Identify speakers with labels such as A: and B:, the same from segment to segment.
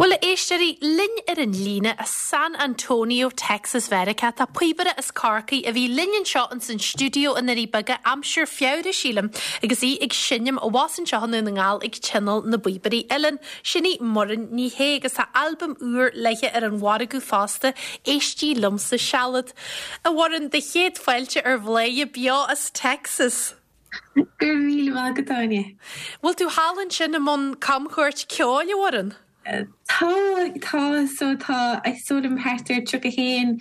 A: Bhuel, a éisteoirí, linn ar an líne as San Antonio, Texas, Mheiriceá, tá píobaire as Corcaigh a bhí linn anseo ins an stiúideo i nDoirí Beaga aimsir Feabhra, sílim, agus í ag seinm abhus anseo i nDún na nGall ag Tionól na bPíobairí Uilleann. Sin í Muireann Ní Shé agus tá albam úr léithe ar an mhargadh fosta, Éistigh Liomsa Sealad. A Mhuireann, do chéad fáilte ar Bhladhaire beo as Texas!
B: Go raibh míle maith agat, Áine.
A: Bhfuil tú thall ansin i mbun camchuairt ceoil, a Mhuireann?
B: Tá, tá, so tá, is dóigh liom thart ar 31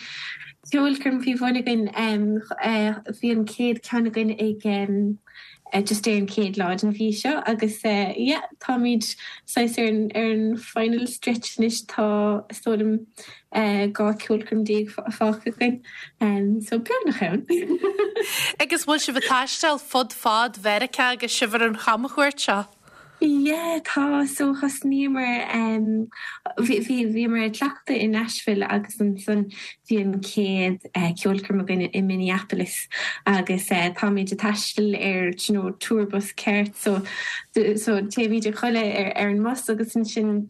B: ceolchoirm faoi bhun againn. Bhí an chéad ceann againn ag just ar an chéad lá den mhí seo agus yeah, táimid saghas ar an ar an final stretch anois, tá is dóigh liom 12 ceolchoirm fágtha againn, so beagnach ann.
A: Agus bhfuil sibh ag taisteal fud fad Mheiriceá agus sibh ar an chamchuairt seo?
B: Yeah, tá, so thosnaíomar, bhí, bhí, bhíomar ag cleachtadh i Nashville agus ansan bhí an chéad ceolchoirm againn i Minneapolis agus táimid ag taisteal ar, do you know, tour bus ceart so, so téimid a chodladh ar, ar an mbus agus ansin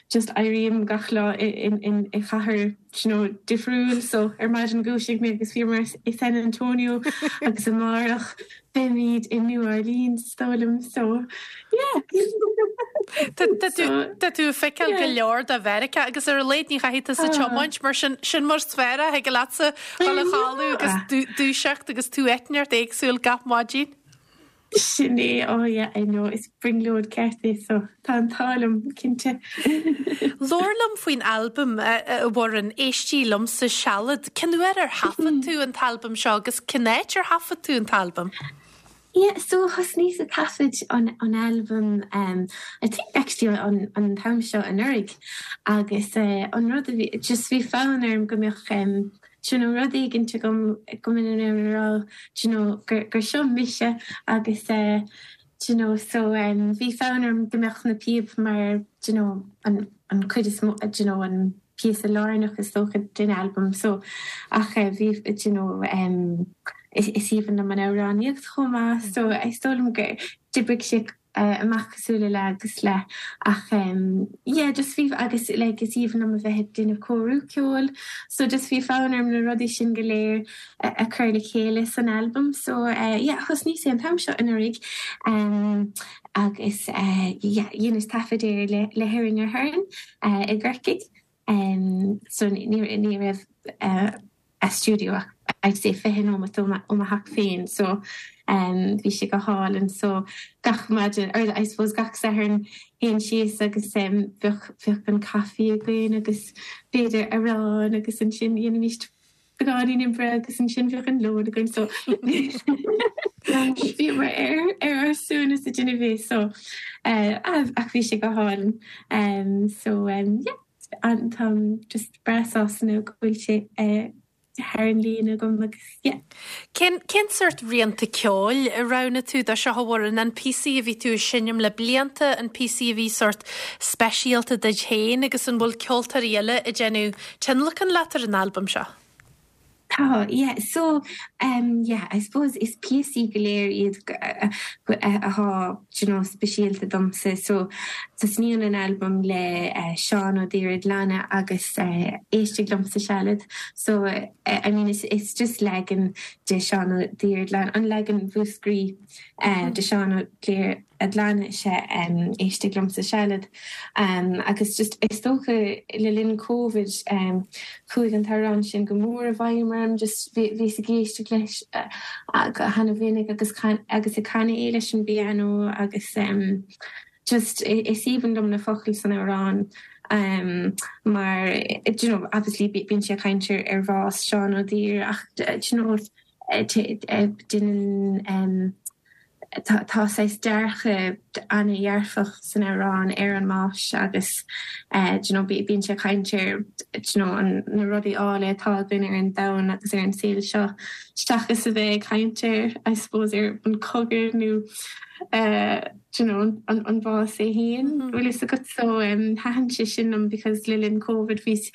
B: just éirím gach lá i chathair you know difriúil so ar maidin dhúisigh mé agus bhíomar i San Antonio agus amárach beimid i New Orleans is dóigh liom so yeah.
A: Tá tú ag feiceáil go leor de Mheiriceá agus ar a laghad ní chaithfidh tusa tiomáint mar sin sin mar is fearr a thig leatsa dul a chodladh agus dúiseacht agus tú áit inteacht éagsúil gach maidin.
B: Sin é, oh yeah, I know, is brionglóid ceart é so tá an t-ádh liom, cinnte.
A: Labhair liom faoin albam, a Mhuireann, Éistigh Liomsa Sealad. Cén uair ar thaifead tú an t-albam seo agus cén áit ar thaifead tú an t-albam?
B: Yeah, so thosnaíos ag taifead an an albam um, I think actually an an t-am seo anuraidh agus eh, an rud a bhí, just bhí fonn orm go mbeadh um, do you know, rud éigint agam go mbeinn in ann a rá, do you know, gur, gur seo mise agus eh, do you know, so em, bhí fonn orm go mbeadh na píob mar, do you know, an, an cuid is mó, do you know, an píosa lárnach is dócha den albam so ach eh, bhí, do you know, em, is, is aoibhinn liom an amhránaíocht chomh maith so is dóigh liom gur d'oibrigh sé amach cosúil le leath agus leath ach yeah just bhí agus like is aoibhinn liom a bheith ag déanamh cóiriú ceoil so just bhí fonn orm na rudaí sin go léir a chur le chéile san albam so yeah thosnaíos é an t-am seo anuraidh agus yeah dheineas taifead air le le hErin Aherne i gCorcaigh so ní ní raibh a stiúideo ach I'd say 20 nóimeat ó mo theach féin so bhí sé go hálainn so gach maidin or I suppose gach Satharn théinn síos agus bheadh bheadh an caife againn agus b'fhéidir arán agus ansin dhéanaimis beagáinín oibre agus ansin bheadh an lón againn so bhíomar ar ar ár suaimhneas ag déanamh é so ach bhí sé go hálainn so yeah. Táim just breá sásta now go bhfuil sé thar an líne agam agus yeah.
A: Cén cén sórt rianta ceoil a roghnaigh tú do seo a Mhuireann? An píosaí a bhí tú ag seinm le blianta, an píosaí a bhí sórt speisialta duit féin agus an bhfuil ceoltóirí eile ag déanamh tionlacan leat ar an albam seo?
B: Tá, yeah. So, um, yeah, I suppose is píosaí go léir iad atá, do you know, speisialta domsa. So, tosnaíonn an albam le Seán Ó Daoradhlanna agus Éistigh Liomsa Sealad. So, I mean, is, is just leagan de Seán Ó Daoradhlanna, an leagan Mhúscraí de Seán Ó Daoradhlanna is ea Éistigh Liomsa Sealad. Agus just is dócha le linn Covid chuaigh an t-amhrán sin go mór i bhfeidhm orm, just bhíos ag éisteacht leis go hana-mhinic agus agus ag canadh é leis an bpianó agus just is aoibhinn liom na focail san amhrán mar do you know obviously bíonn sé ag caint ar bhás Seán Ó Duibhir ach do you know déanann Tá saghas dearcadh an-dhearfach san amhrán ar an mbás agus do you know bíonn sé ag caint ar do you know na rudaí áille atá againn ar an domhan agus ar an saol seo seachas a bheith ag caint ar I suppose ar an cogadh nó do you know an bás é féin bhfuil fhios agat so thaitin sé sin liom because le linn Covid bhíos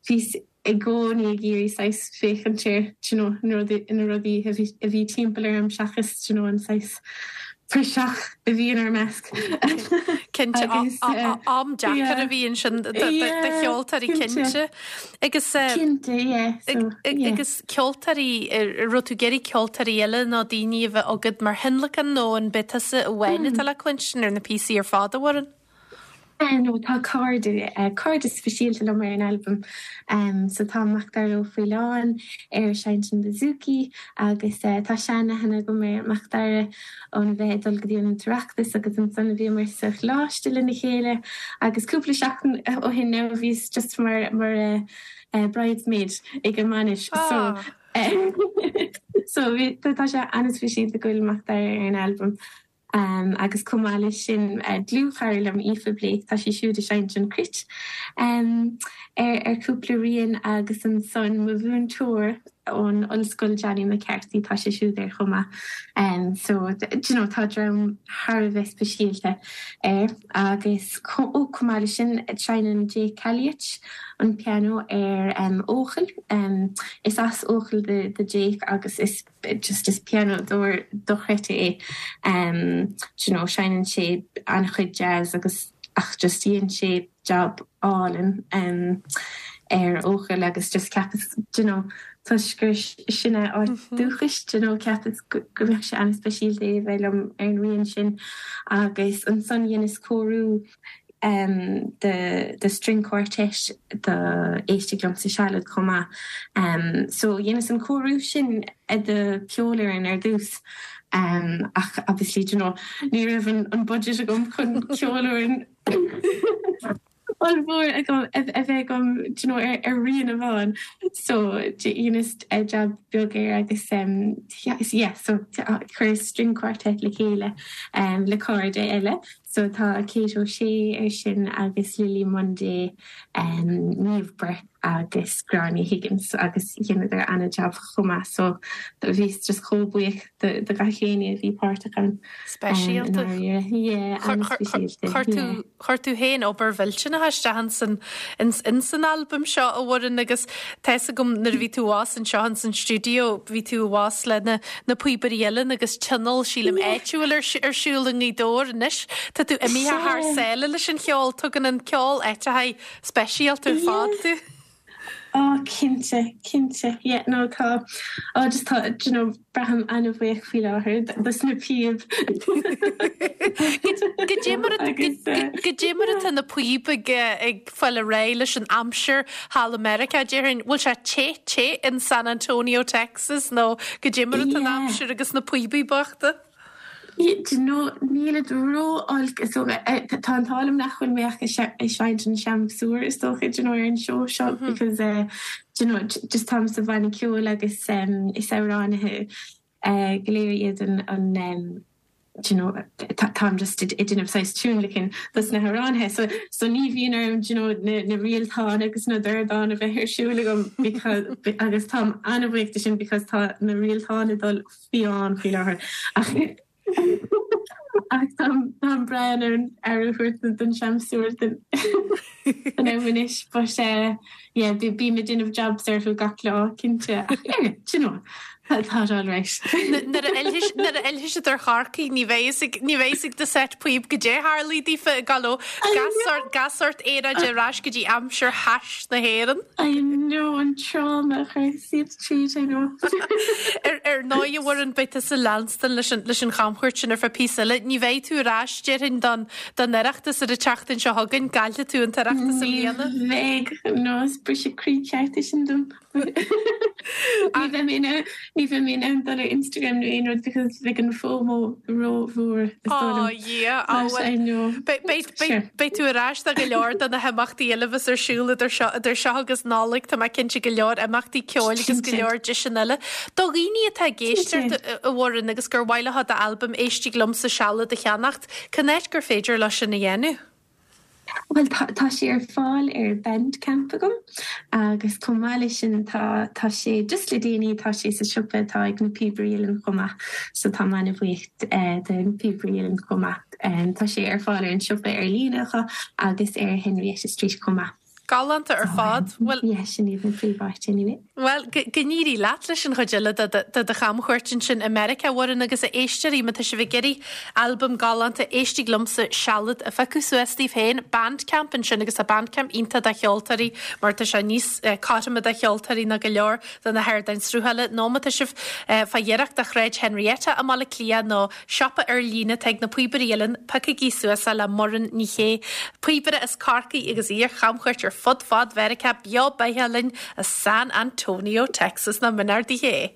B: bhíos i gcónaí ag iarraidh saghas féachaint ar do you know na rudaí na rudaí a bhí a bhí timpeall orm seachas do you know an saghas praiseach a bhí inár measc.
A: Cinnte, am deacair a bhí ansin do cheoltóirí cinnte. Agus
B: Cinnte, yeah. So,
A: yeah. Agus ceoltóirí, an raibh tú ag iarraidh ceoltóirí eile nó daoine a bheith agat mar thionlacan nó an b'é tusa amháin atá le cluinstin ar na píosaí ar fad, a Mhuireann?
B: No, tá cairde, cairde speisialta liom ar an albam. So tá Macdara Ó Faoláin ar seinnt an bouzouki agus tá seanaithne agam ar Macdara óna bheith ag dul go dtí an tOireachtas agus ansan bhíomar sa choláiste lena chéile agus cúpla seachtain ó shin now bhíos just mar mar bridesmaid ag an mbainis so so bhí tá sé an-speisialta go bhfuil Macdara ar an albam. Agus chomh maith leis sin, dlúthchara liom, Aoife Blake, tá sí siúd ag seinnt an cruit ar chúpla rian agus ansan mo mhúinteoir ón ollscoil Johnny McCarthy, tá sé siúd air chomh maith. So, do you know, tá dream thar a bheith speisialta air. Agus ó, chomh maith leis sin, seinneann Jake Calliet an pianó ar Eochaill. Is as Eochaill do Jake agus is. just is pianódóir dochreidte é do you know seinneann sé an-chuid jazz agus ach just dhein sé job álainn ar Eochaill agus just cheapas do you know toisc gur sin a áit dúchais do you know cheapas go mbeadh sé an-speisialta é a bheith liom ar an rian sin agus ansan dheineas cóiriú do string quartet do Éistigh Liomsa Sealad chomh maith. So dheineas an cóiriú sin do cheolfhoireann ar dtús ach obviously do you know ní raibh an budget agam chun ceolfhoireann ollmhór agam a bheith agam do you know ar rian amháin. So dheineas jab beag air agus yeah so chuireas string quartet le chéile le cairde eile. So tá Kate O'Shea ar sin agus Lily Munday, Niamh Burke agus Gráinne Higgins agus dheineadar ana-jab chomh maith so bhíos just chomh buíoch do gach éinne a bhí páirteach ann.
A: Speisialta.
B: Yeah, an-speisialta.
A: Chuir tú chuir tú féin obair mhillteanach isteach insan insan albam seo a Mhuireann agus tá fhios agam nuair a bhí tú abhus anseo insan stiúideo bhí tú abhus le na na píobairí uilleann agus tionól sílim áitiúil ar ar siúl i nGaoth Dobhair anois. Tá tú imithe thar sáile leis an cheol, tugann an ceol áiteachaí speisialta ar fad tú.
B: Ó cinnte, cinnte, yeah no tá, oh just tá, do you know, braithim an-bhuíoch faoi láthair dos na píob.
A: Goidé mar goidé mar atá na píob ag ag fáil ar aghaidh leis an aimsir thall i Meiriceá, déarfainn, bhfuil sé te te in San Antonio, Texas nó goidé mar atá an aimsir agus na píobaí bochta?
B: Do you know, nílid ró-olc is dócha. Tá an t-ádh liom nach bhfuil mé ach ag seinnt an seamsúr is dócha, do you know, ar an seó seo because do you know, just táim sa bhanna ceoil agus is amhránaithe go léir iad an do you know, táim just ag déanamh saghas tionlacan dos na hamhránaithe so so ní bhíonn orm do you know, na na rialtáin agus na dordáin a bheith ar siúl agam because agus táim an-bhuíoch de sin because tá na rialtáin ag dul fiáin faoi láthair ach ach táim táim breá in ann aire a thabhairt don seamsúr don don am anois but eh yeah bím ag déanamh jobs orthu gach lá cinnte ach yeah do you know tá tá sé alright.
A: Nuair a fhillfidh nuair a fhillfidh siad ar Chorcaigh ní bheidh fhios ag ní bheidh fhios ag do set píob goidé tharla daofa ag dul ó gach sórt gach sórt aeráide ar ais go dtí aimsir thais na hÉireann.
B: I know an trauma a chuir siad tríd, I know.
A: Ar ar ndóigh a Mhuireann, beidh tusa ag leanstan leis an leis an chamchuairt sin ar feadh píosa eile. Ní bheidh tú ar ais, déarfainn, don don Oireachtas ar an tseachtain seo chugainn. Caillfidh tú an tOireachtas i
B: Ní
A: mbliana.
B: bheidh, no, is briseadh croí ceart é sin dom. Ní bheidh mé in ann, ní bheidh mé in ann dul ar Instagram nó aon rud because bheadh an FOMO ró-mhór is dóigh liom.
A: Ó Dhia, á
B: But I
A: bhuel,
B: know.
A: beidh, beidh, beidh,
B: Sure.
A: beidh tú ar ais do go leor de na himeachtaí eile a bheas ar siúl idir seo, idir seo agus Nollaig, tá mé cinnte go leor imeachtaí ceoil agus go
B: Cinnte.
A: leor deiseanna eile. Do dhaoine atá ag éisteacht
B: Cinnte.
A: a Mhuireann agus gur mhaith leo d'albam Éistigh Liomsa Sealad a cheannacht, cén áit gur féidir leo sin a dhéanamh?
B: Bhuel, tá, tá sé ar fáil ar Bandcamp agam agus chomh maith leis sin tá, tá sé, just le déanaí, tá sé sa siopa atá ag na Píobairí Uilleann chomh maith so táim an-bhuíoch de na Píobairí Uilleann chomh maith. Tá sé ar fáil ar an siopa ar líne acu agus ar Henrietta Street chomh maith.
A: Galánta ar fad.
B: Bhuel. Yeah, sin iad na príomháit anyway.
A: Bhuel, go n-éirí leat leis an chuid eile de do chamchuairt ansin i Meiriceá, a Mhuireann, agus a éisteoirí, má tá sibh ag iarraidh albam galánta Éistigh Liomsa Sealad a phiocadh suas daoibh féin, Bandcamp ansin agus tá Bandcamp iontach do cheoltóirí mar tá sé níos cothroime do cheoltóirí ná go leor de na hardáin sruthála, nó má tá sibh fá ghiorracht do Shráid Henrietta i mBaile Átha Cliath nó siopa ar líne atá ag na Píobairí Uilleann, piocaigí suas é le Muireann Ní Shé, píobaire as Corcaigh agus í ar chamchuairt ar fud fad Mheiriceá beo beathach linn as San Antonio, Texas. Nach mb'in ard í?